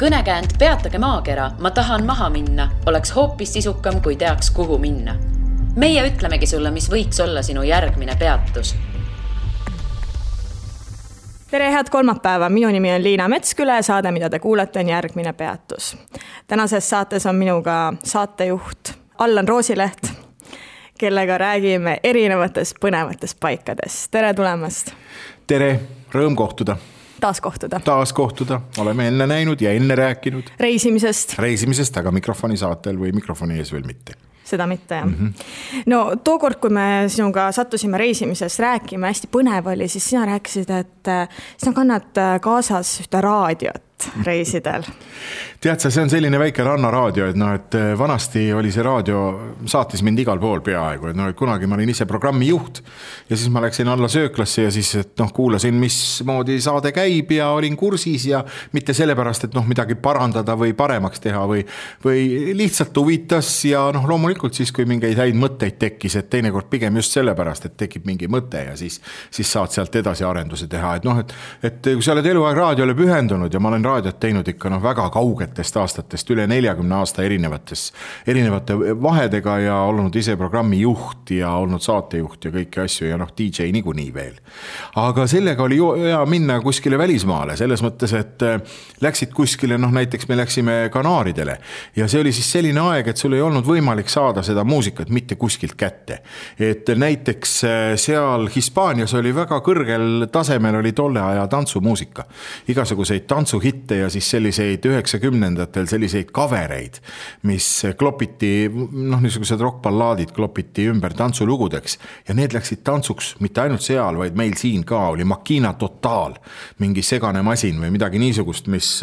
Kõnekäänd Peatage maakera, ma tahan maha minna, oleks hoopis sisukam, kui teaks, kuhu minna. Meie ütlemegi sulle, mis võiks olla sinu järgmine peatus. Tere, head kolmapäeva. Minu nimi on Liina Metsküle. Saade, mida te kuulete, on järgmine peatus. Tänases saates on minuga saatejuht Allan Roosileht, kellega räägime erinevatest põnevatest paikadest. Tere tulemast. Tere, rõõm kohtuda. Taas kohtuda. Oleme enne näinud ja enne rääkinud. Reisimisest, aga mikrofoni saatel või mikrofoni ees veel mitte. Seda mitte, jah. No tookord, kui me sinuga sattusime reisimisest rääkima, hästi põnev oli, siis sina rääkisid, et sina kannad kaasas ühte raadiot reisidel. Tead sa, see on selline väike rannaraadio, et vanasti oli see raadio, saatis mind igal pool peaaegu, et kunagi ma olin ise programmi juht ja siis ma läksin alla sööklasse ja siis kuulasin, mismoodi saade käib ja olin kursis ja mitte sellepärast, et midagi parandada või paremaks teha või lihtsalt huvitas ja loomulikult siis, kui mingeid häid mõtteid tekkis, et teinekord pigem just sellepärast, et tekib mingi mõte ja siis saad sealt edasi arenduse teha, et kui sa oled eluaeg raadiole pühendunud ja ma olen raadiot teinud ikka väga kaugetest aastatest, üle 40 aasta erinevate vahedega ja olnud ise programmi juht ja olnud saatejuht ja kõiki asju ja DJ niikuinii veel. Aga sellega oli hea minna kuskile välismaale, selles mõttes, et läksid kuskile, näiteks me läksime Kanaaridele ja see oli siis selline aeg, et sul ei olnud võimalik saada seda muusikat mitte kuskilt kätte. Et näiteks seal Hispaanias oli väga kõrgel tasemel oli tolle aja tantsumuusika. Igasuguseid tantsuhitte ja siis selliseid 90-ndatel selliseid kavereid, mis klopiti, niisugused rockballaadid klopiti ümber tantsulugudeks ja need läksid tantsuks mitte ainult seal, vaid meil siin ka oli Makina Total, mingi segane masin või midagi niisugust, mis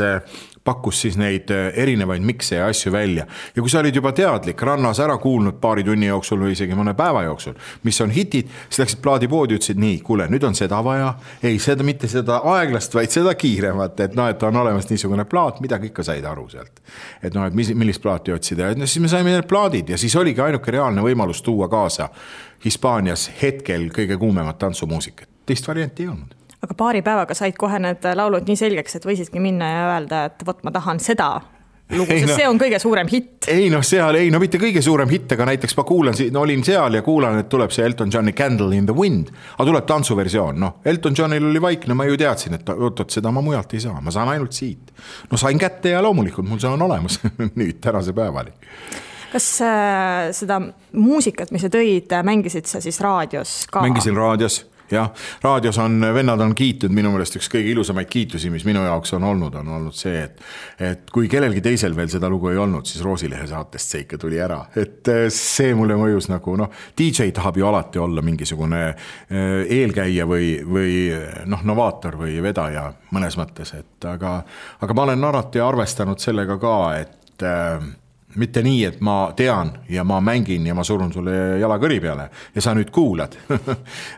pakkus siis neid erinevaid mikse ja asju välja. Ja kui sa olid juba teadlik, rannas ära kuulnud paari tunni jooksul või isegi mõne päeva jooksul, mis on hitid, siis läksid plaadipoodi ja ütlesid, nii, kuule, nüüd on seda vaja. Ei, seda mitte seda aeglast, vaid seda kiiremat, et on olemas niisugune plaat, midagi ikka said aru sealt. Et millist plaati otsida. Ja siis me saime need plaadid ja siis oligi ainuke reaalne võimalus tuua kaasa Hispaanias hetkel kõige kuumemat tantsumuusikat. Teist varianti ei olnud. Aga paari päevaga said kohe need laulud nii selgeks, et võisidki minna ja öelda, et võt, ma tahan seda lugu, sest see on kõige suurem hitt. Mitte kõige suurem hitt, aga näiteks ma olin seal ja kuulan, et tuleb see Elton Johni Candle in the Wind, aga tuleb tantsuversioon. Elton Johnil oli vaikne, ma ju teadsin, et seda ma mujalt ei saa, ma saan ainult siit. Sain kätte ja loomulikult mul see on olemas nüüd tänase päevali. Kas seda muusikat, mis sa tõid, mängisid sa siis raadios ka? Mängisin raadios. Ja, raadios vennad on kiitud, minu meelest üks kõige ilusamaid kiitusi, mis minu jaoks on olnud see, et kui kellelgi teisel veel seda lugu ei olnud, siis Roosilehe saatest see ikka tuli ära. Et see mulle mõjus DJ tahab ju alati olla mingisugune eelkäija või novaator või vedaja mõnes mõttes, aga ma olen alati arvestanud sellega ka, et mitte nii, et ma tean ja ma mängin ja ma surun sulle jala kõri peale ja sa nüüd kuulad.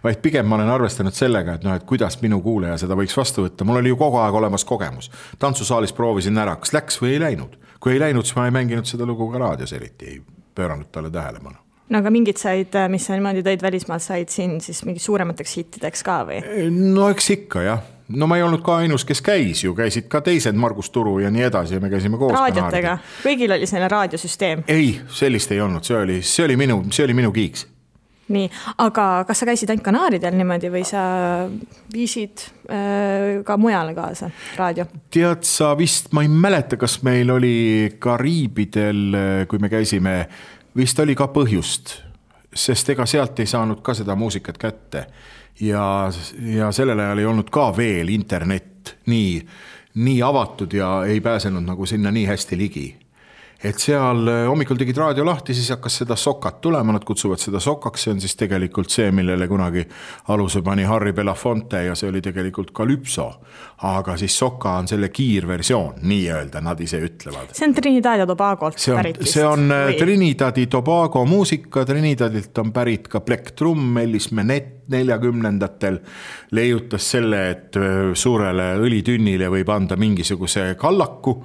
Vaid pigem ma olen arvestanud sellega, et kuidas minu kuuleja seda võiks vastu võtta. Mul oli ju kogu aeg olemas kogemus. Tantsusaalis proovisin ära, kas läks või ei läinud. Kui ei läinud, siis ma ei mänginud seda lugu ka raadios eriti, ei pööranud talle tähelepanu. Aga mingid said, mis sa niimoodi tõid välismaalt, said siin siis mingi suuremateks hittideks ka või? Eks ikka, jah. Ma ei olnud ka ainus, kes käisid ka teised Margus Turu ja nii edasi ja me käisime koos. Raadiotega? Kõigil oli selline raadiosüsteem? Ei, sellist ei olnud, see oli minu kiiks. Nii, aga kas sa käisid ainult Kanaaridel niimoodi või sa viisid ka mujale kaasa raadio? Tead sa vist, ma ei mäleta, kas meil oli Kariibidel, kui me käisime, vist oli ka põhjust, sest ega sealt ei saanud ka seda muusikat kätte. Ja sellel ajal ei olnud ka veel internet nii avatud ja ei pääsenud sinna nii hästi ligi. Et seal hommikul tegid raadio lahti, siis hakkas seda sokat tulema, nad kutsuvad seda sokaks, see on siis tegelikult see, millele kunagi aluse pani Harry Belafonte ja see oli tegelikult Calypso, aga siis soka on selle kiirversioon, nii öelda, nad ise ütlevad. See on Trinidad ja Tobagolt pärit vist? See on Trinidad ja Tobago muusika, Trinidadilt on pärit ka Black Drum, Ellis 40ndatel leiutas selle, et suurele õlitünnile võib anda mingisuguse kallaku,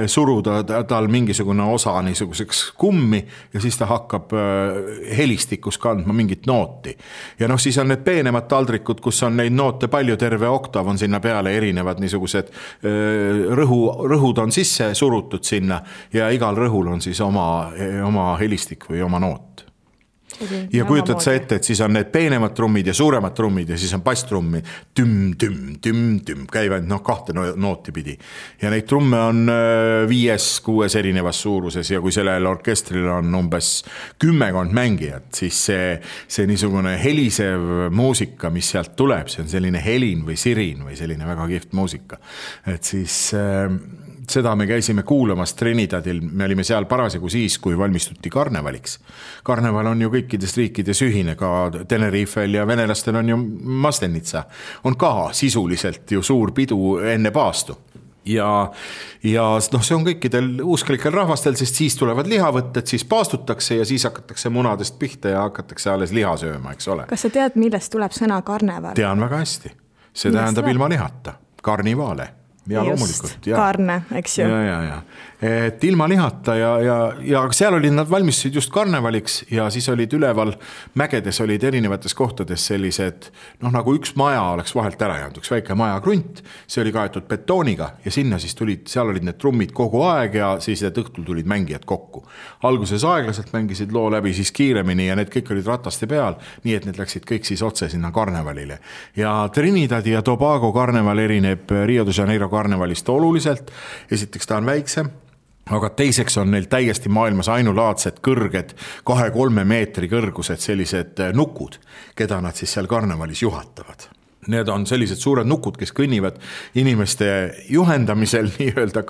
suruda tal mingisugune osa niisuguseks kummi ja siis ta hakkab helistikus kandma mingit nooti. Ja noh, siis on need peenemad taldrikud, kus on neid noote palju, terve oktav on sinna peale, erinevad niisugused rõhud on sisse surutud sinna ja igal rõhul on siis oma helistik või oma noot. Ja kujutad sa ette, et siis on need peenemad trummid ja suuremad trummid ja siis on basstrummi tüm, käivad kahte nooti pidi. Ja neid trumme on 5-6 erinevas suuruses ja kui sellel orkestril on umbes 10 mängijat, siis see niisugune helisev muusika, mis sealt tuleb, see on selline helin või sirin või selline väga kihvt muusika. Et siis seda me käisime kuulamas Trinidadil, me olime seal parasjagu siis, kui valmistuti karnevaliks. Karneval on ju kõikides riikides ühine, ka Tenerifel ja venelastel on ju Maslenitsa. On ka sisuliselt ju suur pidu enne paastu. Ja see on kõikidel usklikel rahvastel, sest siis tulevad lihavõtted, siis paastutakse ja siis hakatakse munadest pihta ja hakatakse alles liha sööma, eks ole. Kas sa tead, millest tuleb sõna karneval? Tean väga hästi. See tähendab ilma lihata. Karnivaale. Ja loomulikult. Karne, eks ju. Ja. Et ilma lihata ja seal olid nad valmistusid just karnevaliks ja siis olid üleval mägedes olid erinevates kohtades sellised, nagu üks maja oleks vahelt ära jäänud, üks väike maja krunt, see oli kaetud betooniga ja sinna siis seal olid need trummid kogu aeg ja siis õhtul tulid mängijad kokku. Alguses aeglaselt mängisid loo läbi, siis kiiremini ja need kõik olid rataste peal, nii et need läksid kõik siis otse sinna karnevalile. Ja Trinidadi ja Tobago karneval erineb Rio de Janeiro karnevalist oluliselt. Esiteks ta on väiksem, aga teiseks on neil täiesti maailmas ainulaadsed kõrged 2-3 meetri kõrgused sellised nukud, keda nad siis seal karnevalis juhatavad. Need on sellised suured nukud, kes kõnnivad inimeste juhendamisel nii-öelda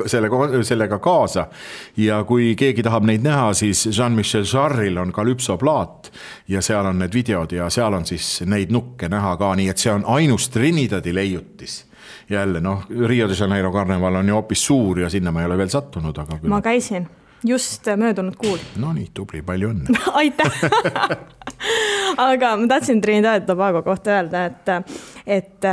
sellega kaasa. Ja kui keegi tahab neid näha, siis Jean-Michel Jarre'il on Calypso-plaat ja seal on need videod ja seal on siis neid nukke näha ka, nii et see on ainus Trinidadi leiutis. Jälle, Rio de Janeiro karneval on ju hoopis suur ja sinna ma ei ole veel sattunud. Aga ma käisin just möödunud kuul. No nii, tubli, palju õnne. Aitäh! Aga ma tahtsin Trinidad ja Tobago kohta öelda, et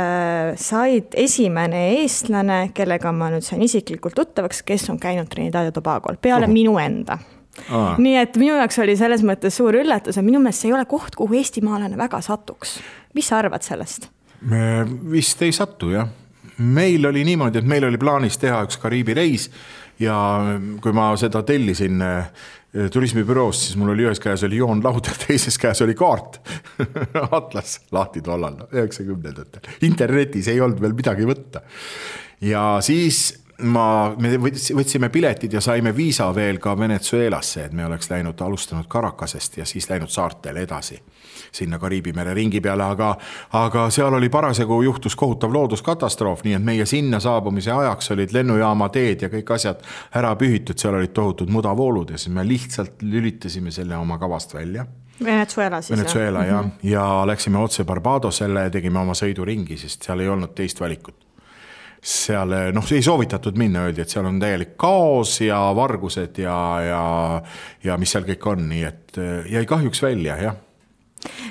said esimene eestlane, kellega ma nüüd sain isiklikult tuttavaks, kes on käinud Trinidad ja Tobagol, peale minu enda. Nii et minu jaoks oli selles mõttes suur üllatus, et minu meelest see ei ole koht, kuhu eestimaalane väga satuks. Mis sa arvad sellest? Me vist ei satu, jah. Meil oli niimoodi, et meil oli plaanis teha üks Kariibi reis ja kui ma seda tellisin turismibüroost, siis mul oli ühes käes oli joonlaud ja teises käes oli kaart. Atlas lahti tollal, 90-ndatel. Internetis ei olnud veel midagi võtta. Ja siis me võtsime piletid ja saime viisa veel ka Venezuelasse, et me oleks alustanud Caracasest ja siis läinud saartele edasi sinna Kariibi mere ringi peale, aga seal oli parasjagu juhtus kohutav looduskatastroof, nii et meie sinna saabumise ajaks olid lennujaama teed ja kõik asjad ära pühitud, seal olid tohutud mudavoolud ja siis me lihtsalt lülitasime selle oma kavast välja. Venezuela siis. Venezuela, jah. Ja läksime otse Barbadosele ja tegime oma sõiduringi, sest seal ei olnud teist valikut. Seal, see ei soovitatud minna, öeldi, et seal on täielik kaos ja vargused ja mis seal kõik on, nii et jäi kahjuks välja, jah.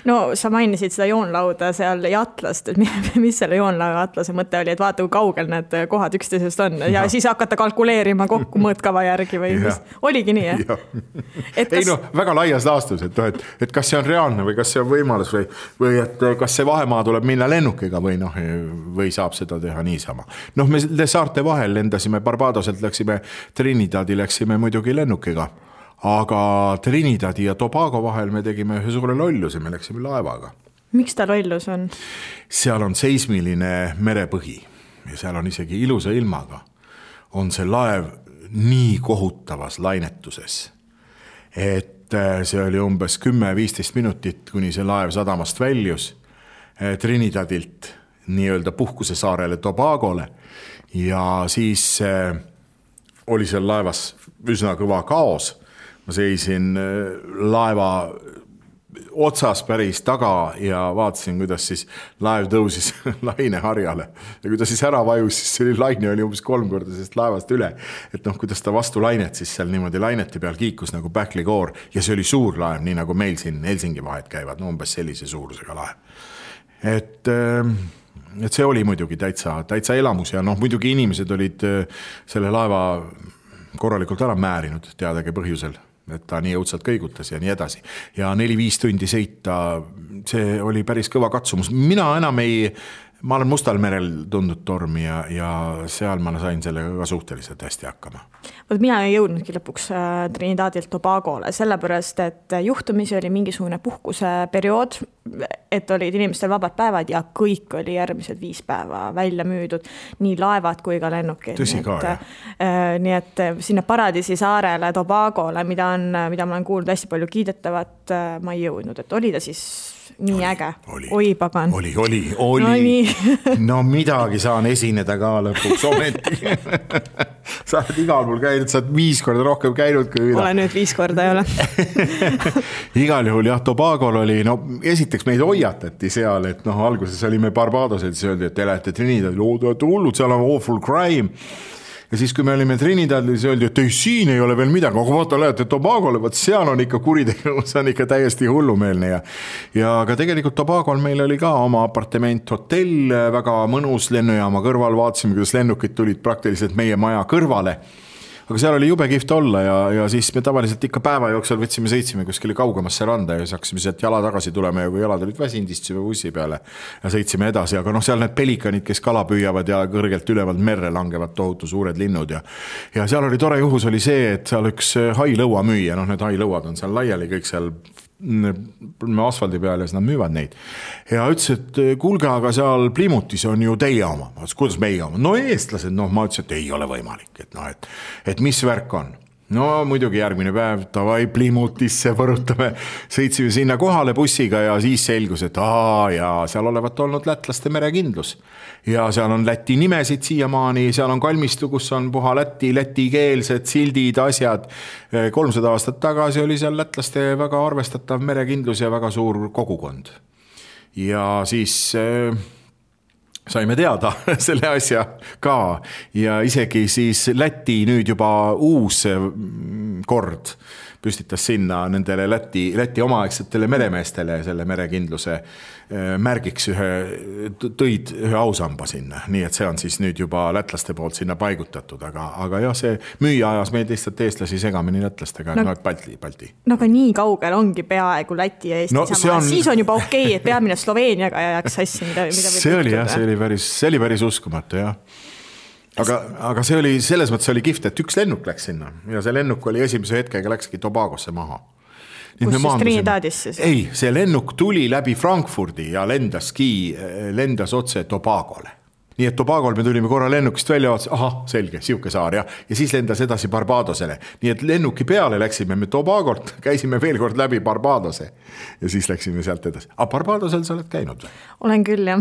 No sa mainisid seda joonlauda seal ja atlast, et mis selle joonlauda atlase mõte oli, et vaata, kui kaugel need kohad üksteisest on ja siis hakata kalkuleerima kokku mõõtkava järgi või mis? Oligi nii, jah? Ei väga laias laastus, et kas see on reaalne või kas see on võimalus või et kas see vahemaa tuleb minna lennukiga või saab seda teha niisama. Me saarte vahel lendasime Barbadoselt, läksime Trinidadi, läksime muidugi lennukiga. Aga Trinidadi ja Tobago vahel me tegime ühe suure lolluse, me läksime laevaga. Miks ta lollus on? Seal on seismiline merepõhi ja seal on isegi ilusa ilmaga. On see laev nii kohutavas lainetuses, et see oli umbes 10-15 minutit, kuni see laev sadamast väljus Trinidadilt nii-öelda puhkusesaarele Tobagole ja siis oli seal laevas üsna kõva kaos. Ma seisin laeva otsas päris taga ja vaatasin, kuidas siis laev tõusis laineharjale. Ja kui ta siis ära vajus, siis see laine oli umbes 3 korda sellest laevast üle. Et kuidas ta vastu lainet siis seal niimoodi laineti peal kiikus nagu Bäckligoor ja see oli suur laev, nii nagu meil siin Helsingi vahet käivad, umbes sellise suurusega laev. et see oli muidugi täitsa elamus ja muidugi inimesed olid selle laeva korralikult ära määrinud teadagi põhjusel, et ta nii õudselt kõigutas ja nii edasi. Ja 4-5 tundi sõita, see oli päris kõva katsumus. Ma olen Mustal merel tundnud tormi ja seal ma sain sellega ka suhteliselt hästi hakkama. Mina ei jõudnudki lõpuks Trinidadilt Tobagole, sellepärast, et juhtumisi oli mingisugune puhkuseperiood, et olid inimestel vabad päevad ja kõik oli järgmised 5 päeva välja müüdud, nii laevad kui ka lennukid. Tõsi ka, jah. Nii et sinna Paradiisi saarele Tobagole, mida ma olen kuulnud hästi palju kiidetavat, ma ei jõudnud, et oli ta siis nii äge. Oi, pagan. Oli. No midagi saan esineda ka lõpuks ometi. Sa oled igal pool käinud, sa oled 5 korda rohkem käinud kui mina. Olen nüüd 5 korda ei ole. Igal juhul jah, Tobagol oli, esiteks meid hoiatati seal, et alguses olime Barbadosel, siis öeldi, et te lähete Trinidadil, hullud, seal on awful crime. Ja siis, kui me olime Trinidadil, siis öeldi, et siin ei ole veel midagi, aga vaata, lähete Tobagole, seal on ikka kuritegevus, see on ikka täiesti hullumeelne. Ja ka tegelikult Tobagol meil oli ka oma apartement, hotell, väga mõnus lennujaama kõrval, vaatasime, kuidas lennukid tulid praktiliselt meie maja kõrvale. Aga seal oli jube kihvt olla ja siis me tavaliselt ikka päeva jooksul sõitsime kuskile kaugemasse randa ja siis hakkasime sealt jala tagasi tulema ja kui jalad olid väsinud, istusime bussi peale ja sõitsime edasi. Aga seal need pelikanid, kes kala püüavad ja kõrgelt ülevalt merre langevad tohutu suured linnud ja seal oli tore juhus oli see, et seal üks hailõua müüa, need hailõuad on seal laiali kõik seal asfaldi peal ja siis nad müüvad neid. Ja ütles, et kuulge, aga seal Plymutis on ju teie oma. Kuidas meie oma? No eestlased, ma ütles, et ei ole võimalik. Et mis värk on? No muidugi järgmine päev, tavai Plymutisse võrutame, sõitsime sinna kohale bussiga ja siis selgus, et seal olevat olnud lätlaste merekindlus. Ja seal on Läti nimesid siiamaani, seal on kalmistu, kus on puha lätikeelsed sildid, asjad. 300 aastat tagasi oli seal lätlaste väga arvestatav merekindlus ja väga suur kogukond. Ja siis saime teada selle asja ka ja isegi siis Läti nüüd juba uus kord püstitas sinna nendele Läti omaaegsetele meremeestele selle merekindluse märgiks tõid ühe ausamba sinna. Nii et see on siis nüüd juba lätlaste poolt sinna paigutatud, aga jah, see müüa ajas meid lihtsalt eestlasi segamini lätlastega, Balti. No aga nii kaugel ongi peaaegu Läti ja Eesti sama. Siis on juba okei, et peamine Sloveeniaga jääks sassi, mida see oli jah, see oli päris uskumatu jah. Aga see oli, selles mõttes oli kihvt, et üks lennuk läks sinna ja see lennuk oli esimese hetkega läkski Tobagosse maha. Kus siis Trinidadisse? Ei, see lennuk tuli läbi Frankfurdi ja lendas otse Tobagole. Nii et Tobagol me tulime korra lennukist välja, selge, siuke saar ja siis lendas edasi Barbadosele. Nii et lennuki peale läksime me Tobagolt, käisime veel kord läbi Barbadose ja siis läksime sealt edasi. Barbadosel sa oled käinud või? Olen küll, jah.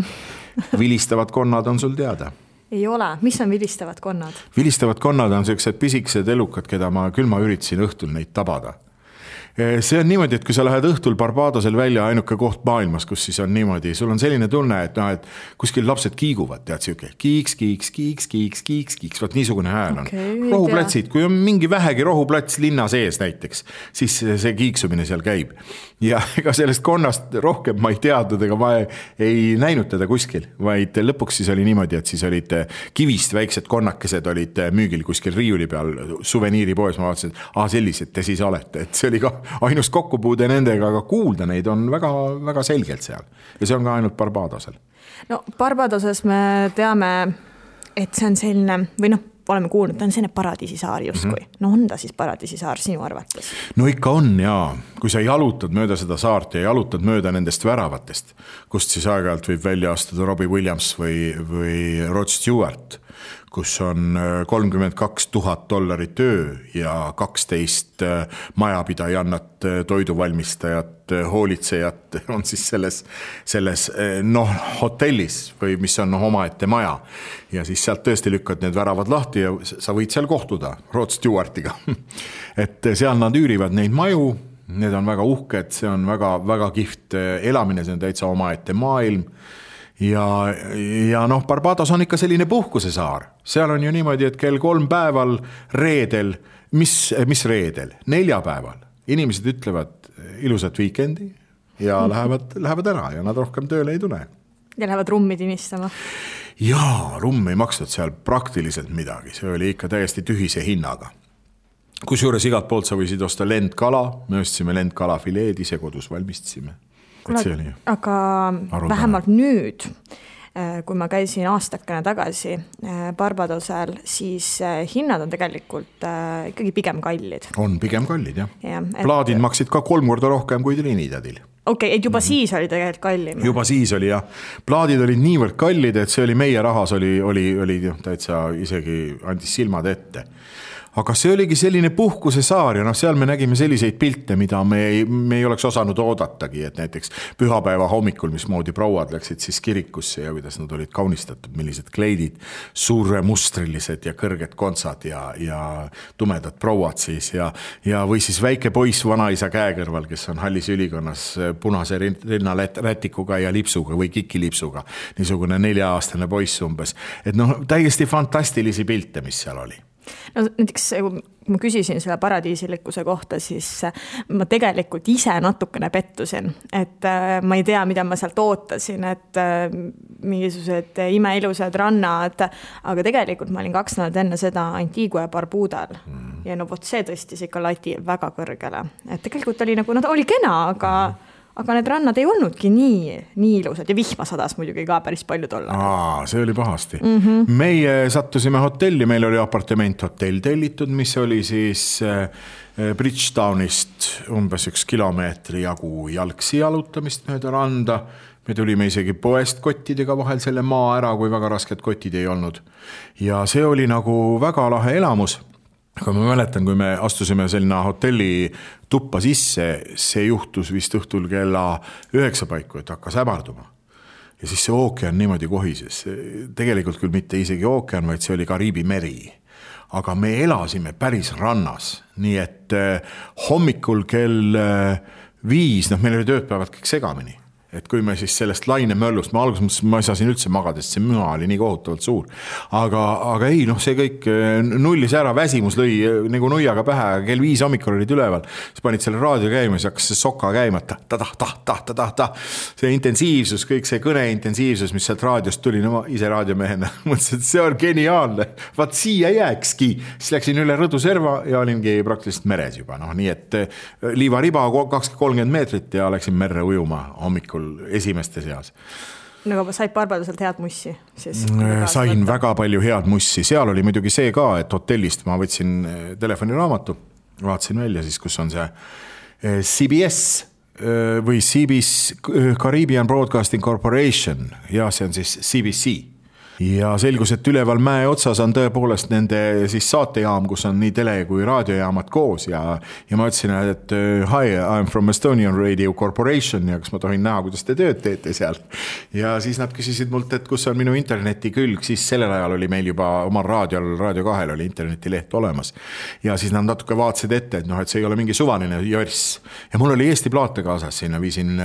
Vilistavad konnad on sul teada? Ei ole. Mis on vilistavad konnad? Vilistavad konnad on sellised pisikesed elukad, keda ma üritasin õhtul neid tabada. See on niimoodi, et kui sa lähed õhtul Barbadosel välja ainuke koht maailmas, kus siis on niimoodi, sul on selline tunne, et kuskil lapsed kiiguvad, tead siuke kiiks, vaat niisugune hääl on. Rohuplatsid, kui on mingi vähegi rohuplats linna sees näiteks, siis see kiiksumine seal käib. Ja ega sellest konnast rohkem ma ei teadnud, ega ma ei näinud teda kuskil, vaid lõpuks siis oli niimoodi, et siis olid kivist väiksed konnakesed olid müügil kuskil riiuli peal suveniiripoes, ma vaatasin, et sellised te siis olete, et see oli ka ainus kokkupuude nendega, aga kuulda neid on väga, väga selgelt seal. Ja see on ka ainult Barbadosel. No Barbadoses me teame, et see on selline, või oleme kuulnud, ta on selline paradiisisaar justkui. No on ta siis paradiisisaar sinu arvates? No ikka on, jaa. Kui sa jalutad mööda seda saart ja jalutad mööda nendest väravatest, kust siis aeg-ajalt võib välja astuda Robbie Williams või Rod Stewart, kus on $32,000 töö ja 12 majapidajannat, toiduvalmistajat, hoolitsejat on siis selles hotellis või mis on omaette maja. Ja siis sealt tõesti lükkad need väravad lahti ja sa võid seal kohtuda Rod Stewartiga. Et seal nad üürivad neid maju, need on väga uhked, see on väga, väga kihvt elamine, see on täitsa omaette maailm. Ja Barbados on ikka selline puhkusesaar. Seal on ju niimoodi, et kell 3 päeval reedel, mis reedel? 4 päeval. Inimesed ütlevad ilusat weekendi ja lähevad ära ja nad rohkem tööle ei tule. Ja lähevad rummi tinistama? Jaa, rumm ei maksnud seal praktiliselt midagi, see oli ikka täiesti tühise hinnaga. Kusjuures igalt poolt sa võisid osta lendkala, me ostsime lendkalafileed, ise kodus valmistasime. Aga vähemalt nüüd, kui ma käisin aastakene tagasi Barbadosel, siis hinnad on tegelikult ikkagi pigem kallid. On pigem kallid, jah. Plaadid maksid ka 3 korda rohkem kui Trinidadil. Okei, et juba siis oli tegelikult kallim. Juba siis oli, jah. Plaadid olid niivõrd kallid, et see oli meie rahas, oli täitsa isegi andis silmad ette. Aga see oligi selline puhkuse saar ja seal me nägime selliseid pilte, mida me ei oleks osanud oodatagi, et näiteks pühapäeva hommikul, mismoodi prouad läksid siis kirikusse ja kuidas nad olid kaunistatud, millised kleidid, suuremustrilised ja kõrged kontsad ja tumedad prouad siis ja või siis väike poiss vanaisa käekõrval, kes on hallis ülikonnas punase rinnarätikuga ja lipsuga või kikilipsuga, niisugune 4-aastane poiss umbes. Et täiesti fantastilisi pilte, mis seal oli. No näiteks, kui ma küsisin selle paradiisilikkuse kohta, siis ma tegelikult ise natukene pettusin, et ma ei tea, mida ma sealt ootasin, et mingisugused imeilusad rannad, aga tegelikult ma olin 2 nädalat enne seda Antigua ja Barbudal ja vot see tõstis ikka lati väga kõrgele, et tegelikult oli nagu, oli kena, aga need rannad ei olnudki nii ilusad ja vihma sadas muidugi ka päris palju tolla. See oli pahasti. Meie sattusime hotelli, meil oli apartement hotell tellitud, mis oli siis Bridgetownist umbes 1 kilomeetri jagu jalgsi jalutamist mööda randa. Me tulime isegi poest kottidega vahel selle maa ära, kui väga rasked kotid ei olnud. Ja see oli nagu väga lahe elamus. Aga ma mäletan, kui me astusime selline hotelli tuppa sisse, see juhtus vist õhtul kella 9 paiku, et hakkas hämarduma. Ja siis see ookean niimoodi kohises. Tegelikult küll mitte isegi ookean, vaid see oli Kariibi meri. Aga me elasime päris rannas, nii et hommikul kell 5, meil oli tööpäevad kõik segamini. Et kui me siis sellest lainemöllust, ma alguses mõtlesin, ma ei saa siin üldse magada, sest see müha oli nii kohutavalt suur. Aga ei, see kõik nullis ära, väsimus lõi nagu nuiaga pähe, kell 5 hommikul olid üleval. Siis panid selle raadio käima, siis hakkas see soka käima, see intensiivsus, kõik see kõne intensiivsus, mis sealt raadiost tuli, ma ise raadiomehena mõtlesin, et see on geniaalne, vaat siia jääkski. Siis läksin üle Rõduserva ja olingi praktiliselt meres juba, nii et liivariba 20-30 meetrit ja läksin merre ujuma hommikul esimeste seas. Nagu said Barbadoselt head mussi? Sain väga palju head mussi. Seal oli muidugi see ka, et hotellist ma võtsin telefoniraamatu, vaatasin välja siis, kus on see CBS või CBS Caribbean Broadcasting Corporation ja see on siis CBC. Ja selgus, et üleval mäe otsas on tõepoolest nende siis saatejaam, kus on nii tele- kui raadiojaamad koos ja ma ütlesin, et hi, I'm from Estonian Radio Corporation ja kas ma tohin näha, kuidas te tööd teete seal. Ja siis nad küsisid mult, et kus on minu interneti külg, siis sellel ajal oli meil juba omal raadiol, Radio 2 oli internetileht olemas. Ja siis nad natuke vaatasid ette, et see ei ole mingi suvaline jörss. Ja mul oli Eesti plaate kaasas, sinna viisin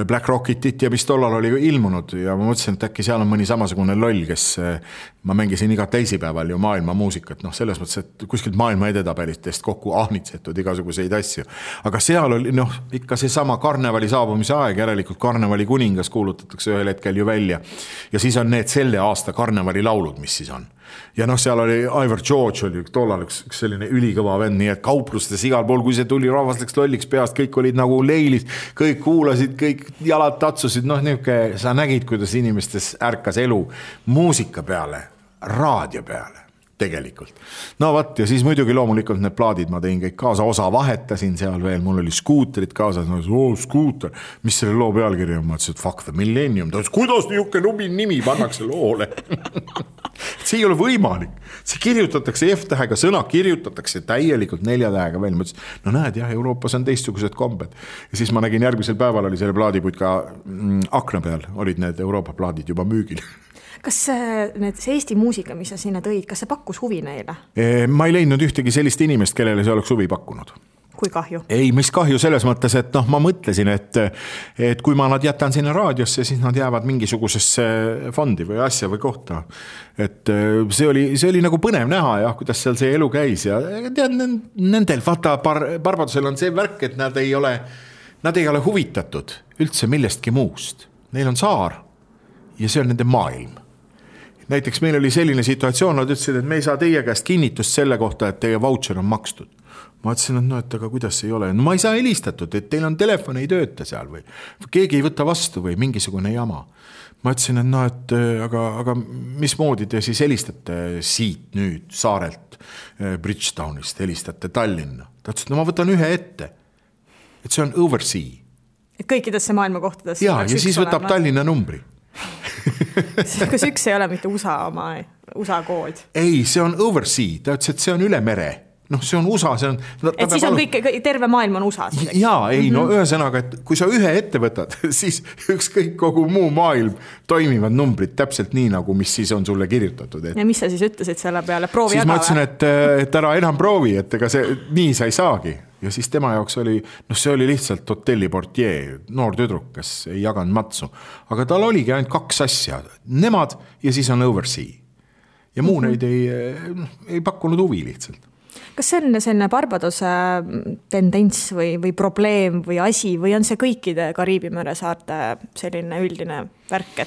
Black Rocketit ja mis tollal oli ilmunud ja ma mõtlesin, et äkki seal on mõni samasugune loll, kes ma mängisin iga teisipäeval ju maailma muusikat, selles mõttes, et kuskilt maailma edetabelitest kokku ahnitsetud igasuguseid asju. Aga seal oli ikka see sama karnevali saabumise aeg, järelikult karnevali kuningas kuulutatakse ühel hetkel ju välja. Ja siis on need selle aasta karnevali laulud, mis siis on. Ja seal oli Ivor George oli tollal üks selline ülikõva vend, nii et kauplustes igal pool, kui see tuli rahvas läks lolliks peast, kõik olid nagu leilis, kõik kuulasid, kõik jalad tatsusid, sa nägid, kuidas inimestes ärkas elu muusika peale, raadio peale tegelikult. Ja siis muidugi loomulikult need plaadid ma tein kõik kaasa, osa vahetasin seal veel, mul oli skuutrid kaasas, skuuter, mis selle loo pealkiri on, ma ütlesin, et fuck the millennium, ta ütles, kuidas niuke nubi nimi pannakse loole? See ei ole võimalik, see kirjutatakse F-tähega, sõna kirjutatakse täielikult 4 tähega veel, ma ütlesin, näed jah, Euroopas on teistsugused kombed. Ja siis ma nägin järgmisel päeval oli selle plaadiputka akna peal, olid need Euroopa plaadid juba müügil. Kas see Eesti muusika, mis sa sinna tõid, kas see pakkus huvi neile? Ma ei leidnud ühtegi sellist inimest, kellele see oleks huvi pakkunud. Kui kahju? Ei, mis kahju selles mõttes, et ma mõtlesin, et kui ma nad jätan sinna raadiosse, siis nad jäävad mingisugusesse fondi või asja või kohta. Et see oli nagu põnev näha ja kuidas seal see elu käis ja tead, nendel vaata Barbadosel on see värk, et nad ei ole huvitatud üldse millestki muust. Neil on saar. ja see on nende maailm. Näiteks meil oli selline situatsioon, nad ütlesid, et me ei saa teie käest kinnitust selle kohta, et teie voucher on makstud. Ma ütlesin, et no, et aga kuidas ei ole. No ma ei saa helistatud, et teil on telefon ei tööta seal või keegi ei võta vastu või mingisugune jama. Ma ütlesin, et no, et aga mismoodi te siis helistate siit nüüd Saarelt, Bridgetownist, helistate Tallinna. Ta ütles, et no ma võtan ühe ette, et see on oversea. Et kõikidesse maailma kohtadesse. Ja siis võtab Tallinna numbri. Kas üks ei ole mitte USA kood? Ei, see on oversea. Ta ütles, et see on üle mere. noh, see on USA, see on... Et siis on kõik, terve maailm on USA. Jaa, ei, no ühesõnaga, et kui sa ühe ette võtad, siis ükskõik kogu muu maailm toimivad numbrid täpselt nii, nagu mis siis on sulle kirjutatud. Ja mis sa siis ütlesid selle peale? Proovi siis ma ütlesin, et ära enam proovi, et ega see nii sa ei saagi. Ja siis tema jaoks oli, noh see oli lihtsalt hotelliportier, noor tüdruk, kes ei jaganud matsu. Aga tal oligi ainult 2 asja, nemad ja siis on oversea. Ja muu neid ei pakkunud huvi lihtsalt. Kas see on selline Barbadose tendents või probleem või asi või on see kõikide Kariibi mere saarte selline üldine värk,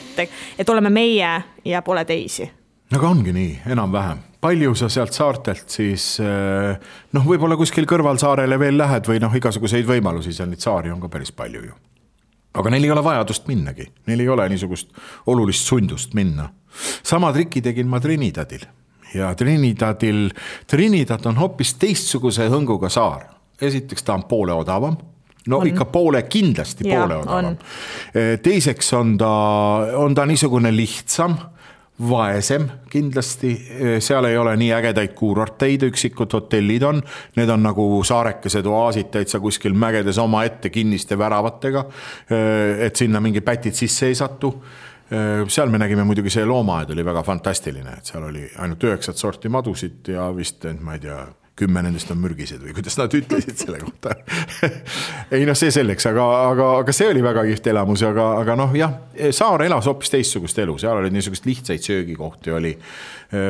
et oleme meie ja pole teisi? Aga ongi nii, enam vähem. Palju sa sealt saartelt siis, noh võib-olla kuskil kõrvalsaarele veel lähed või noh igasuguseid võimalusi, seal neid saari on ka päris palju ju. Aga neil ei ole vajadust minnagi, neil ei ole niisugust olulist sundust minna. Sama triki tegin ma Trinidadil. Ja Trinidad on hoopis teistsuguse hõnguga saar. Esiteks ta on poole odavam. No on. Ikka kindlasti poole odavam. Teiseks on ta niisugune lihtsam, vaesem kindlasti. Seal ei ole nii ägedaid kuurorteid, üksikud hotellid on. Need on nagu saarekesed oaasid täitsa kuskil mägedes oma ette kinniste väravatega, et sinna mingi pätid sisse ei satu. Seal me nägime muidugi see loomaaed oli väga fantastiline, et seal oli ainult 9 sorti madusid ja vist, ma ei tea, 10 nendest on mürgised või kuidas nad ütlesid selle kohta. Ei noh, see selleks, aga see oli väga kiht elamus, aga noh jah, saar elas hoopis teistsugust elu, seal oli niisugust lihtsaid söögikohti oli,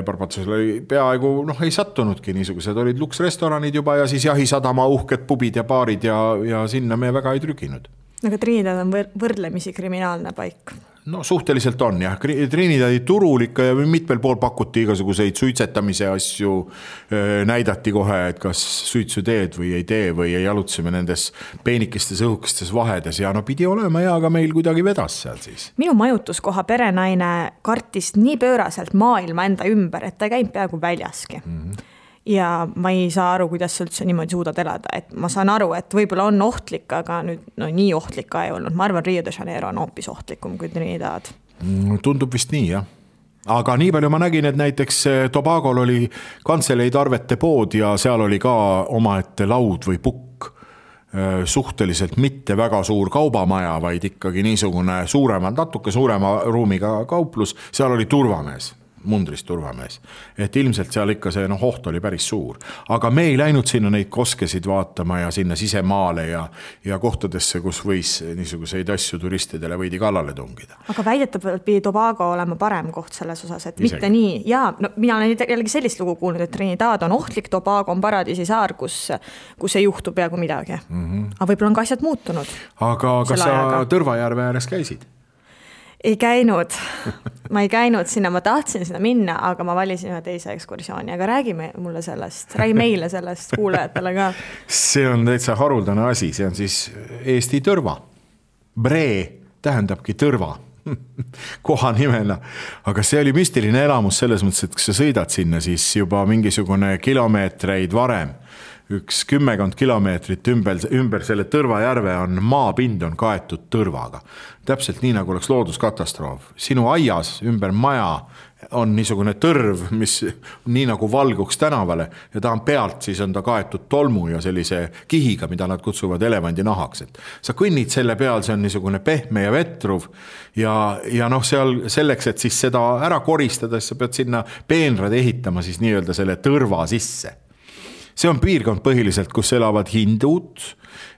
Barbadosel oli peaaegu, noh ei sattunudki niisugused, olid luksrestoranid juba ja siis jahisadama uhked pubid ja baarid ja sinna me väga ei trüginud. Aga Trinidad on võrdlemisi kriminaalne paik. No suhteliselt on jah, Trinidadi turul ikka ja mitmel pool pakuti igasuguseid suitsetamise asju, näidati kohe, et kas suitsu teed või ei tee või ei jalutseme nendes peenikestes õhukestes vahedes ja no pidi olema ja aga meil kuidagi vedas seal siis. Minu majutuskoha perenaine kartis nii pööraselt maailma enda ümber, et ta käib peaaegu väljaski. Ja ma ei saa aru, kuidas sa üldse niimoodi suudad elada, et ma saan aru, et võib-olla on ohtlik, aga nüüd no, nii ohtlik ka ei olnud. Ma arvan, Rio de Janeiro on hoopis ohtlikum kui Trinidad. Tundub vist nii, jah. Aga nii palju ma nägin, et näiteks Tobagol oli kantseleid arvete pood ja seal oli ka omaette laud või pukk. Suhteliselt mitte väga suur kaubamaja, vaid ikkagi niisugune natuke suurema ruumiga kauplus. Seal oli turvamees. Mundrist turvamees. Et ilmselt seal ikka see oht oli päris suur. Aga me ei läinud sinna neid koskesid vaatama ja sinna sisemaale ja kohtadesse, kus võis niisuguseid asju turistidele võidi kallale tungida. Aga väidetavalt pidi Tobago olema parem koht selles osas, et mitte nii. Ja no, mina olen jällegi sellist lugu kuulnud, et Trinidad on ohtlik, Tobago on paradiisi saar, kus ei juhtu peaaegu midagi. Aga võib-olla on ka asjad muutunud. Aga kas sa Tõrvajärve ääres käisid? Ei käinud. Ma ei käinud sinna, ma tahtsin sinna minna, aga ma valisin ühe teise ekskursiooni, aga räägi meile meile sellest kuulajatele ka. See on täitsa haruldane asi, see on siis Eesti Tõrva. Bree tähendabki Tõrva koha nimena, aga see oli müstiline elamus selles mõttes, et kui sa sõidad sinna, siis juba mingisugune kilomeetreid varem, 10 kilomeetrit ümber selle Tõrvajärve on maapind on kaetud tõrvaga. Täpselt nii, nagu oleks looduskatastroof. Sinu aias ümber maja on niisugune tõrv, mis nii nagu valguks tänavale ja ta on pealt, siis on ta kaetud tolmu ja sellise kihiga, mida nad kutsuvad elevandi nahaks. Et sa kõnnid selle peal, see on niisugune pehme ja vetruv ja noh, seal selleks, et siis seda ära koristada, sa pead sinna peenrad ehitama siis nii-öelda selle tõrva sisse. see on piirkond põhiliselt, kus elavad hindud,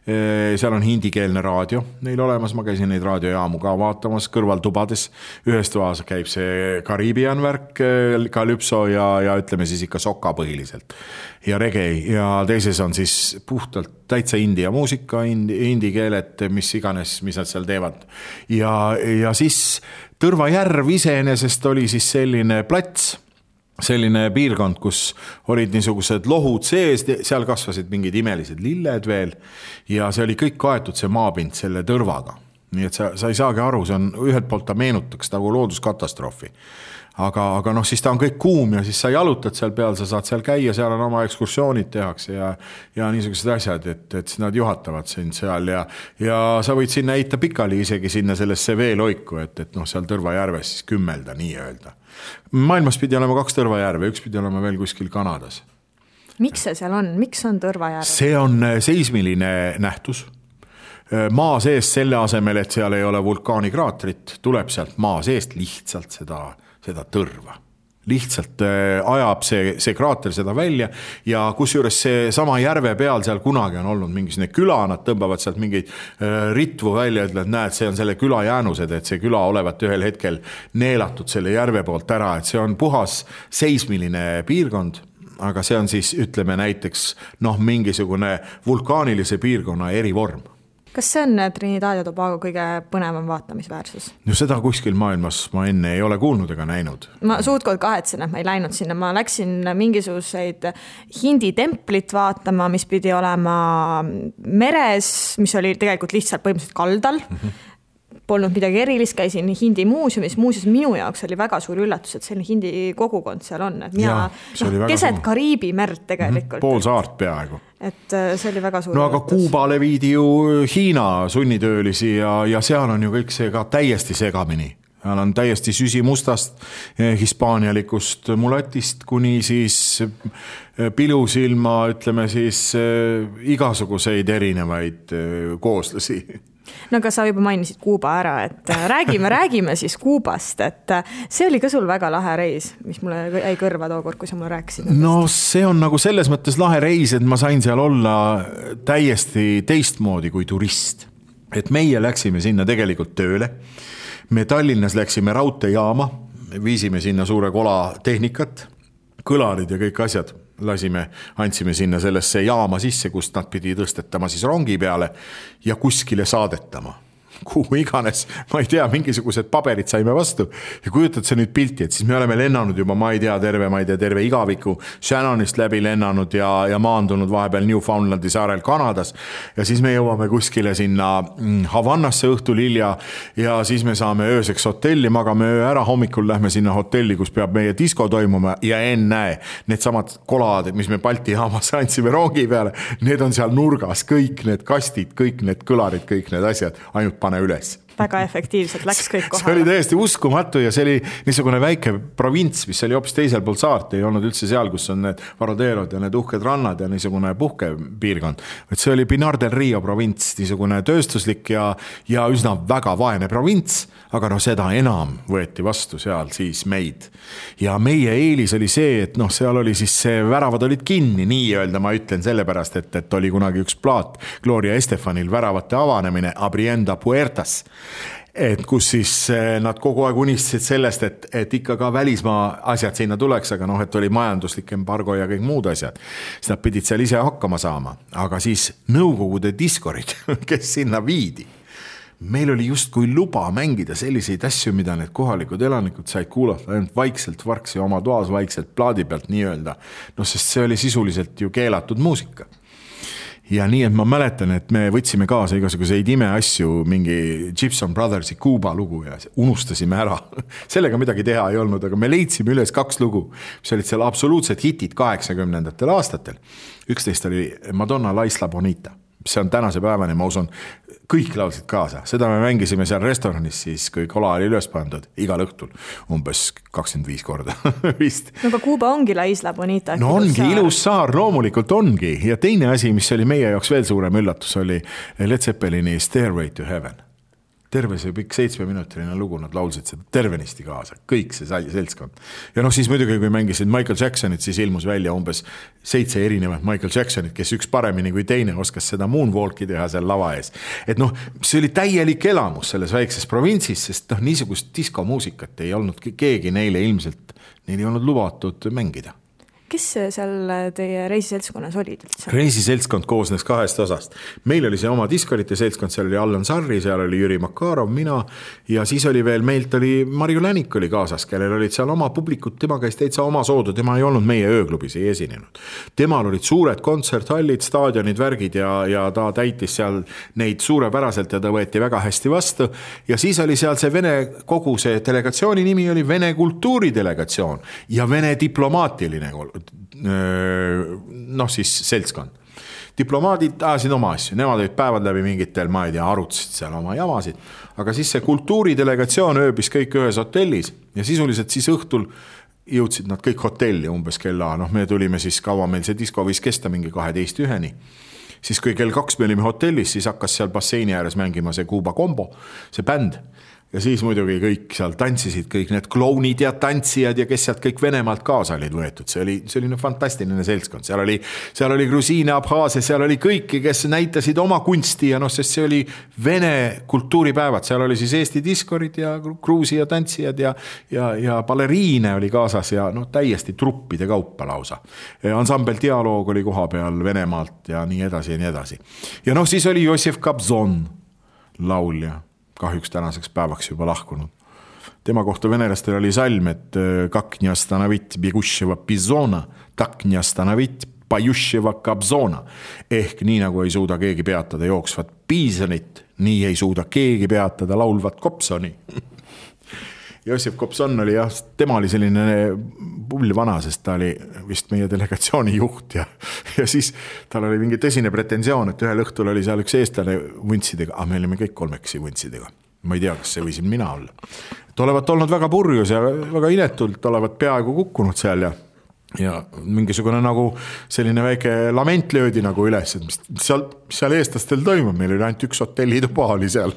seal on hindikeelne raadio neil olemas, ma käisin neid raadiojaamu ka vaatamas kõrvaltubades, ühes toas käib see Kariibian värk, Calypso ja ütleme siis ikka soka põhiliselt ja reggae ja teises on siis puhtalt täitsa india muusika, hindi keeled, mis iganes, mis nad seal teevad ja siis Tõrva järv iseenesest oli siis selline plats, selline piirkond, kus olid niisugused lohud sees, seal kasvasid mingid imelised lilled veel ja see oli kõik kaetud see maapind selle tõrvaga. Nii et sa ei saagi aru, see on ühelt poolt ta meenutaks nagu looduskatastroofi. Aga noh, siis ta on kõik kuum ja siis sa jalutad seal peal, sa saad seal käia, seal on oma ekskursioonid tehakse ja niisugused asjad, et siis nad juhatavad sind seal ja sa võid sinna heita pikali isegi sinna sellesse veeloiku, et noh, seal Tõrva järves siis kümmelda nii öelda. Maailmas pidi olema 2 Tõrva järve, üks pidi olema veel kuskil Kanadas. Miks see seal on? Miks on Tõrva järv? See on seismiline nähtus. Maa seest selle asemel, et seal ei ole vulkaanikraatrit, tuleb sealt maa seest lihtsalt seda tõrva. Lihtsalt ajab see kraater seda välja ja kusjuures see sama järve peal seal kunagi on olnud mingisugune küla, nad tõmbavad sealt mingeid ritvu välja, ütlevad, näed, see on selle küla jäänused, et see küla olevat ühel hetkel neelatud selle järve poolt ära, et see on puhas seismiline piirkond, aga see on siis, ütleme näiteks, mingisugune vulkaanilise piirkonna erivorm. Kas see on Trinidad ja Tobago kõige põnevam vaatamisväärsus? No seda kuskil maailmas ma enne ei ole kuulnud ega näinud. Ma suutkord kahetsen, et ma ei läinud sinna. Ma läksin mingisuguseid hindi templit vaatama, mis pidi olema meres, mis oli tegelikult lihtsalt põhimõtteliselt kaldal. Polnud midagi erilist, käisin hindi muuseumis. Muuseas minu jaoks oli väga suur üllatus, et selline hindi kogukond seal on. Et mina keset Kariibi merd tegelikult. Pool saart peaaegu. Et see oli väga suur üllatus. Aga Kuubale viidi ju Hiina sunnitöölisi ja seal on ju kõik see ka täiesti segamini. Seal on täiesti süsimustast, hispaanialikust mulatist kuni siis pilusilma, ütleme siis igasuguseid erinevaid kooslasi. No aga sa juba mainisid Kuuba ära, et räägime siis Kuubast, et see oli ka sul väga lahe reis, mis mulle jäi kõrva tookord, kui sa mulle rääkisid. No see on nagu selles mõttes lahe reis, et ma sain seal olla täiesti teistmoodi kui turist. Et meie läksime sinna tegelikult tööle. Me Tallinnas läksime raudteejaama, viisime sinna suure kola tehnikat, kõlarid ja kõik asjad. Andsime sinna sellesse jaama sisse, kust nad pidi tõstetama siis rongi peale ja kuskile saadetama. Kuhu iganes, ma ei tea, mingisugused paberid saime vastu ja kujutad see nüüd pilti, et siis me oleme lennanud juba, ma ei tea, terve igaviku Shannonist läbi lennanud ja maandunud vahepeal Newfoundlandi saarel Kanadas ja siis me jõuame kuskile sinna Havannasse õhtul hilja ja siis me saame ööseks hotelli, magame öö ära, hommikul lähme sinna hotelli, kus peab meie disko toimuma ja ennäe, need samad kolad, mis me Balti jaamas andsime rongi peale, need on seal nurgas, kõik need kastid, kõik need kõlarid, kõik need asjad, ainult pane üles. Väga efektiivselt läks kõik kohale. See oli täiesti uskumatu ja see oli niisugune väike provints, mis oli hoopis teisel pool saart, ei olnud üldse seal, kus on need Varaderod ja need uhked rannad ja niisugune puhkepiirkond. Et see oli Pinar del Rio provints, niisugune tööstuslik ja üsna väga vaene provints, aga seda enam võeti vastu seal siis meid. Ja meie eelis oli see, et seal oli siis see väravad olid kinni, nii öelda ma ütlen sellepärast, et oli kunagi üks plaat Gloria Estefanil väravate avanemine Abrienda Puertas, et kus siis nad kogu aeg unistasid sellest, et ikka ka välismaa asjad sinna tuleks, aga et oli majanduslik embargo ja kõik muud asjad. Siis nad pidid seal ise hakkama saama, aga siis nõukogude diskorid, kes sinna viidi. Meil oli just kui luba mängida selliseid asju, mida need kohalikud elanikud said kuulata ainult vaikselt varksi oma toas, vaikselt plaadi pealt nii öelda. Sest see oli sisuliselt ju keelatud muusika. Ja nii, et ma mäletan, et me võtsime kaasa igasuguseid imeasju, mingi Gibson Brothersi Kuuba lugu ja unustasime ära. Sellega midagi teha ei olnud, aga me leidsime üles 2 lugu, mis olid seal absoluutsed hitid 80. aastatel. Üks neist oli Madonna La Isla Bonita. See on tänase päevani, ma usun, kõik laulsid kaasa. Seda me mängisime seal restoranis siis, kui kola oli üles pandud igal õhtul, umbes 25 korda vist. No aga Kuuba ongi La Isla Bonita. No ongi ilus saar, loomulikult ongi. Ja teine asi, mis oli meie jaoks veel suurem üllatus, oli Led Zeppelini Stairway to Heaven. terve see pikk 7-minutiline lugu, nad laulsid seda tervenisti kaasa, kõik see seltskond. Ja siis muidugi, kui mängisid Michael Jacksonit, siis ilmus välja umbes 7 erinevat Michael Jacksonit, kes üks paremini kui teine oskas seda moonwalki teha seal lava ees. Et see oli täielik elamus selles väikses provintsis, sest niisugust diskomuusikat ei olnud keegi neile ilmselt, neil ei olnud lubatud mängida. Kes seal teie reisiseltskonnas olid üldse? Reisiseltskond koosnes 2 osast. Meil oli see oma diskorite seltskond, seal oli Allan Sarri, seal oli Jüri Makarov, mina ja siis oli veel, meilt oli Marju Länik oli kaasas, kellel olid seal oma publikud, tema käis täitsa oma soodu, tema ei olnud meie ööklubis, ei esinenud. Temal olid suured kontserthallid, staadionid, värgid ja ta täitis seal neid suurepäraselt ja ta võeti väga hästi vastu. Ja siis oli seal see Vene, kogu see delegatsiooni nimi oli Vene kultuuridelegatsioon ja Vene diplomaatiline siis seltskond. Diplomaadid ajasid oma asju, nemad olid päevad läbi mingitel, ma ei tea, arutasid seal oma jamasid, aga siis see kultuuridelegatsioon ööbis kõik ühes hotellis ja sisuliselt siis õhtul jõudsid nad kõik hotelli umbes kella, me tulime siis kaua meil see disko võis kesta mingi 12:01. Siis kui kell 2 me olime hotellis, siis hakkas seal basseini ääres mängima see Kuuba Kombo, see bänd. Ja siis muidugi kõik seal tantsisid, kõik need klounid ja tantsijad ja kes sealt kõik Venemaalt kaasa olid võetud. See oli fantastiline seltskond. Seal oli Grusiine, Abhaasia, seal oli kõiki, kes näitasid oma kunsti ja sest see oli Vene kultuuripäevad. Seal oli siis Eesti diskorid ja Gruusia tantsijad ja baleriine oli kaasas ja täiesti truppide kaupa lausa. Ansambel Dialoog oli koha peal Venemaalt ja nii edasi ja nii edasi. Ja siis oli Jossif Kobzon laulja. Kahjuks tänaseks päevaks juba lahkunud. Tema kohta venelastel oli salm, et kak не остановить бегущего пизона, так не остановить поющего кобзона. Ehk nii nagu ei suuda keegi peatada jooksvat piisonit, nii ei suuda keegi peatada laulvat kopsoni. Jossif Kobzon oli tema oli selline pullvana, sest ta oli vist meie delegatsiooni juht ja siis tal oli mingi tõsine pretensioon, et ühel õhtul oli seal üks eestlane vuntsidega, me olime kõik 3 vuntsidega. Ma ei tea, kas see võisin mina olla. Et olevat olnud väga purjus ja väga inetult, olevat peaaegu kukkunud seal ja mingisugune nagu selline väike lament löödi nagu üles, et mis seal eestlastel toimub, meil oli ainult üks hotellituba oli seal.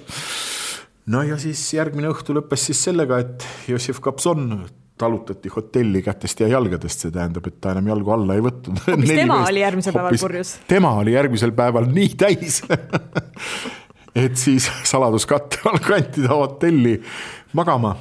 No ja siis järgmine õhtu lõppes siis sellega, et Jossif Kobzon talutati hotelli kätest ja jalgadest, see tähendab, et ta enam jalgu alla ei võtnud. Hoopis tema oli järgmisel päeval purjus. Tema oli järgmisel päeval nii täis, et siis saladuskatte all kanti ta hotelli magama.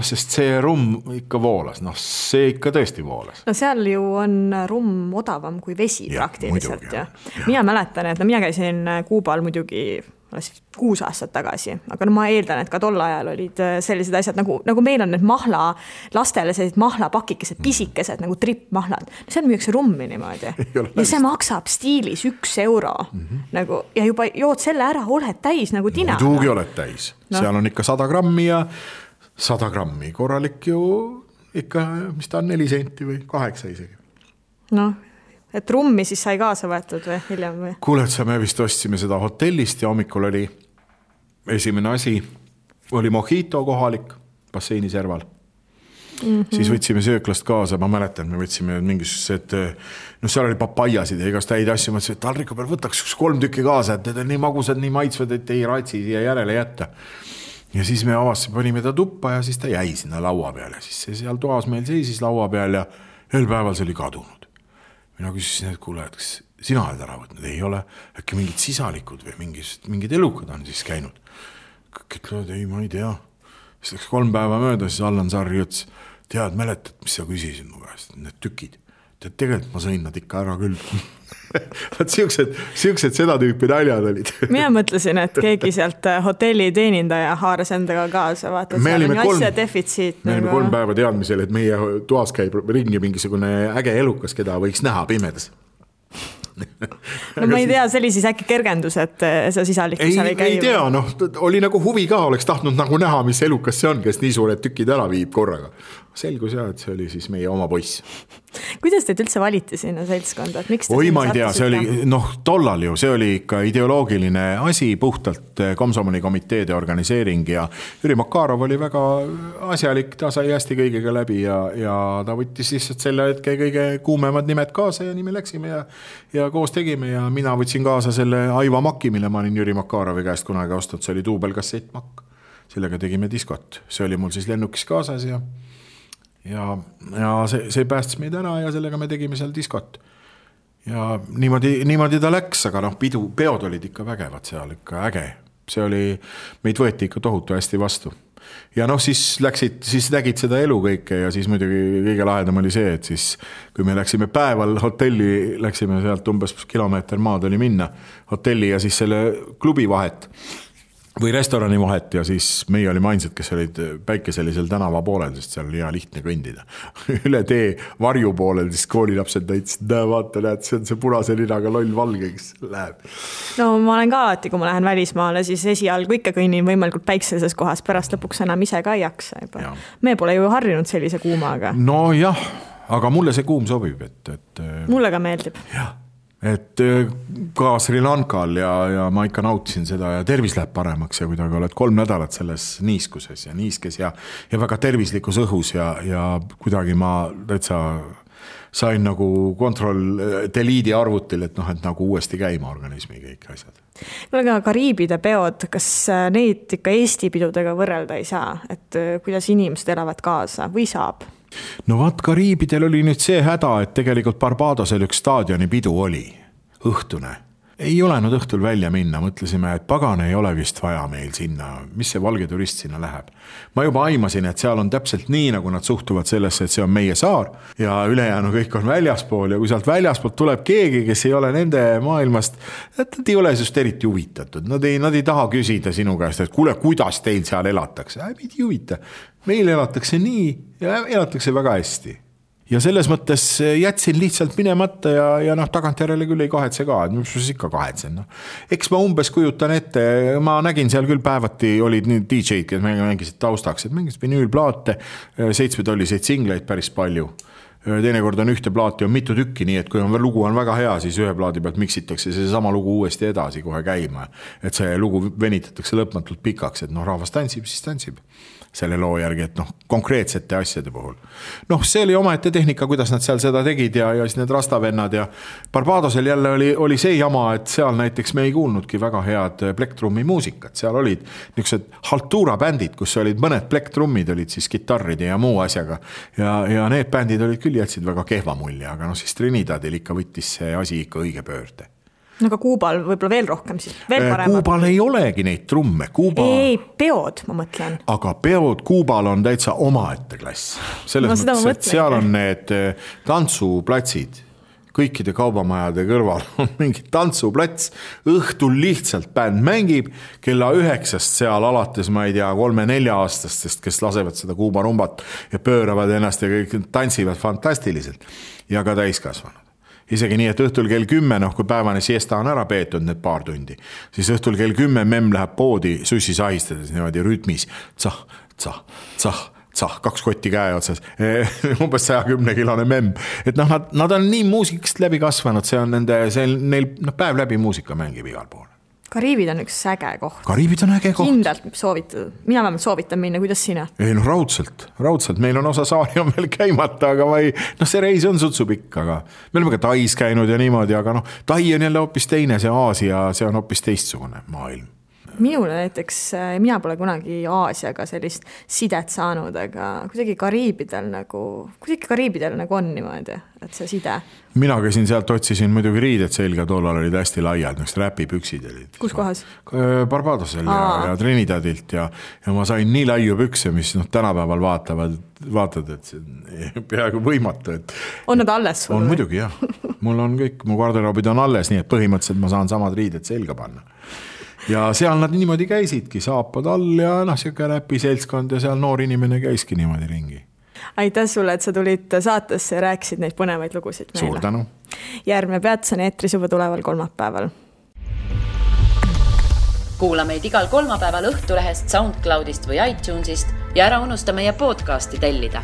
Sest see rumm ikka voolas, see ikka tõesti voolas. Seal ju on rumm odavam kui vesi praktiliselt. Ja. Mina mäletan, et mina käisin Kuubal muidugi 6 aastat tagasi, aga ma eeldan, et ka tol ajal olid sellised asjad, nagu meil on need lastele sellised mahlapakikesed, pisikesed, nagu trippmahlad. Seal müüakse rummi niimoodi. Ja see maksab stiilis 1 euro. Nagu, ja juba jood selle ära, oled täis nagu tina. Muidugi oled täis. Seal on ikka 100 grammi ja 100 grammi. Korralik ju ikka, mis ta on 4 senti või 8 isegi. Et rummi siis sai kaasa võetud või hiljem või? Kuule, et me vist ostsime seda hotellist ja hommikul oli esimene asi, oli mojito kohalik basseini serval. Siis võtsime sööklast kaasa, ma mäletan, me võtsime mingisugused, seal oli papajasid ja igast häid asju, mõtlesin, et taldriku peal võtaks 3 tükki kaasa, et need on nii magusad, nii maitsvad, et ei ratsi siia järele jätta. Ja siis me avasime, panime ta tuppa ja siis ta jäi sinna laua peal ja siis see seal toas meil seisis laua peal ja ühel päeval see oli kadunud. Mina küsisin, et kuule, et kas sina oled ära võtnud, ei ole äkki mingid sisalikud või mingid elukad on siis käinud. Kõik ütlevad, ei, ma ei tea. Siis läks 3 päeva mööda, siis Allan Sarri ütles, tead, mäletad, mis sa küsisid mu käest, need tükid. Tead, tegelikult ma sõin nad ikka ära küll. Siuksed seda tüüpi naljad olid. Mina mõtlesin, et keegi sealt hotelli teenindaja haaras endaga kaasa, vaata, et seal on asja defitsiit. Me olime 3 päeva teadmisel, et meie toas käib ringi mingisugune äge elukas, keda võiks näha pimedas. Ma ei tea, see oli siis äkki kergendus, et see sisalik seal ei käi. Ei tea, oli nagu huvi ka, oleks tahtnud nagu näha, mis elukas see on, kes nii suured tükid ära viib korraga. Selgus jah, et see oli siis meie oma poiss. Kuidas teid üldse valiti sinna seltskonda? Oi, ma ei tea, see oli, tollal ju, see oli ikka ideoloogiline asi, puhtalt Komsomoli komiteede organiseering ja Jüri Makarov oli väga asjalik, ta sai hästi kõigega läbi ja ta võttis lihtsalt selle hetke kõige kuumemad nimed kaasa ja nii me läksime ja koos tegime ja mina võtsin kaasa selle Aiva Maki, mille ma olin Jüri Makarovi käest kunagi ostnud, see oli duubelkassett Makk. sellega tegime diskot. See oli mul siis lennukis kaasas ja see päästis meid ära ja sellega me tegime seal diskot. Ja niimoodi ta läks, aga peod olid ikka vägevad seal, ikka äge. See oli, meid võeti ikka tohutu hästi vastu. Ja siis nägid seda elu kõike ja siis muidugi kõige lahedam oli see, et siis kui me läksime päeval hotelli, läksime sealt umbes kilomeeter maad oli minna hotelli ja siis selle klubi vahet või restorani vahet ja siis meie olime ainsad, kes olid päikeselisel tänava poolel, sest seal oli hea lihtne kõndida. Üle tee varju poolel, siis koolilapsed näitasid, vaata, näed, see on see punase linaga loll valge, kes läheb. No ma olen ka alati, kui ma lähen välismaale, siis esialgu ikka kõnnin võimalikult päikseses kohas, pärast lõpuks enam ise ka ei jaksa. Me pole ju harjunud sellise kuumaga. No jah, aga mulle see kuum sobib. Mulle ka meeldib. Jah. Et ka Sri Lankal ja ma ikka nautisin seda ja tervis läheb paremaks ja kuidagi oled 3 nädalat selles niiskuses ja niiskes ja väga tervislikus õhus ja kuidagi ma täitsa sain nagu delete arvutil, et nagu uuesti käima organismi kõik asjad. Aga Kariibide peod, kas neid ikka Eesti pidudega võrrelda ei saa, et kuidas inimesed elavad kaasa või saab? No vaat Kariibidel oli nüüd see häda, et tegelikult Barbadosel üks staadioni pidu oli, õhtune. Ei olenud õhtul välja minna, mõtlesime, et pagan ei ole vist vaja meil sinna, mis see valge turist sinna läheb. Ma juba aimasin, et seal on täpselt nii, nagu nad suhtuvad sellesse, et see on meie saar ja ülejäänu kõik on väljaspool ja kui sealt väljaspoolt tuleb keegi, kes ei ole nende maailmast, nad ei ole just eriti huvitatud. Nad ei taha küsida sinu käest, et kuule, kuidas teil seal elatakse. Ei huvita. Meil elatakse nii ja elatakse väga hästi. Ja selles mõttes jätsin lihtsalt minemata ja tagantjärele küll ei kahetse ka, et mis ikka kahetsen. Eks ma umbes kujutan ette, ma nägin seal küll päevati, olid nüüd DJ-d, kes mängisid taustaks, et mängisid vinüülplaate, 7-tolliseid singleid päris palju. Teinekord on ühte plaati, on mitu tükki, nii et kui lugu on väga hea, siis ühe plaadi pealt miksitakse see sama lugu uuesti edasi kohe käima. Et see lugu venitatakse lõpmatult pikaks, et rahvas tantsib, siis tantsib selle loo järgi, et konkreetsete asjade puhul. See oli omaette tehnika, kuidas nad seal seda tegid ja siis need rastavennad ja Barbadosel jälle oli see jama, et seal näiteks me ei kuulnudki väga head plektrummi muusikat. Seal olid niisugused haltuura bändid, kus olid mõned plektrummid, olid siis gitarride ja muu asjaga ja need bändid olid küll jätsid väga kehva mulje, aga siis Trinidadil ikka võttis see asi ikka õige pöörde. Aga Kuubal võib-olla veel rohkem siis, veel paremad. Kuubal ei olegi neid trumme. Ei, peod, ma mõtlen. Aga peod Kuubal on täitsa omaette klass. Selles mõttes, et seal on need tantsuplatsid. Kõikide kaubamajade kõrval on mingi tantsuplats. Õhtul lihtsalt bänd mängib, kella 9 seal alates, ma ei tea, 3-4 aastastest, kes lasevad seda Kuuba rumbat ja pööravad ennast ja kõik tantsivad fantastiliselt. Ja ka täiskasvanud. Isegi nii, et õhtul kell 10, kui päevane siesta on ära peetud need paar tundi, siis õhtul kell 10 memm läheb poodi sussi sahistades niimoodi rütmis. Tsah, 2 kotti käe otsas, umbes 110-kilone memm. Et nad on nii muusikast läbi kasvanud, see on neil päev läbi muusika mängib igal pool. Kariibid on üks äge koht. Kariibid on äge koht. Kindlalt soovitud. Mina vähemalt soovitan minna, kuidas sina? Ei, raudselt. Meil on osa saari on veel käimata, aga see reis on sutsupikk, aga me oleme ka Tais käinud ja niimoodi, aga Tai on jälle hoopis teine, see Aasia, see on hoopis teistsugune maailm. Minule näiteks, mina pole kunagi Aasiaga sellist sidet saanud, aga kuidagi Kariibidel on niimoodi, et see side. Mina käisin sealt, otsisin muidugi riided selga, tollal olid hästi laiad, räpipüksid olid. Kus kohas? Barbadosel ja Trinidadilt ja ma sain nii laiu pükse, mis tänapäeval vaatad, et see on peaaegu võimatu. On nad alles? On muidugi, jah. Mul on kõik, mu garderoobid on alles, nii et põhimõtteliselt ma saan samad riided selga panna. Ja seal nad niimoodi käisidki, saapad all ja siuke räpi seltskond ja seal noor inimene käiski niimoodi ringi. Aitäh sulle, et sa tulid saatesse ja rääkisid neid põnevaid lugusid meile. Suur tänu. Järgmine peatus on eetris juba tuleval kolmapäeval. Kuula meid igal kolmapäeval Õhtulehest, SoundCloudist või iTunesist ja ära unusta meie podcasti tellida.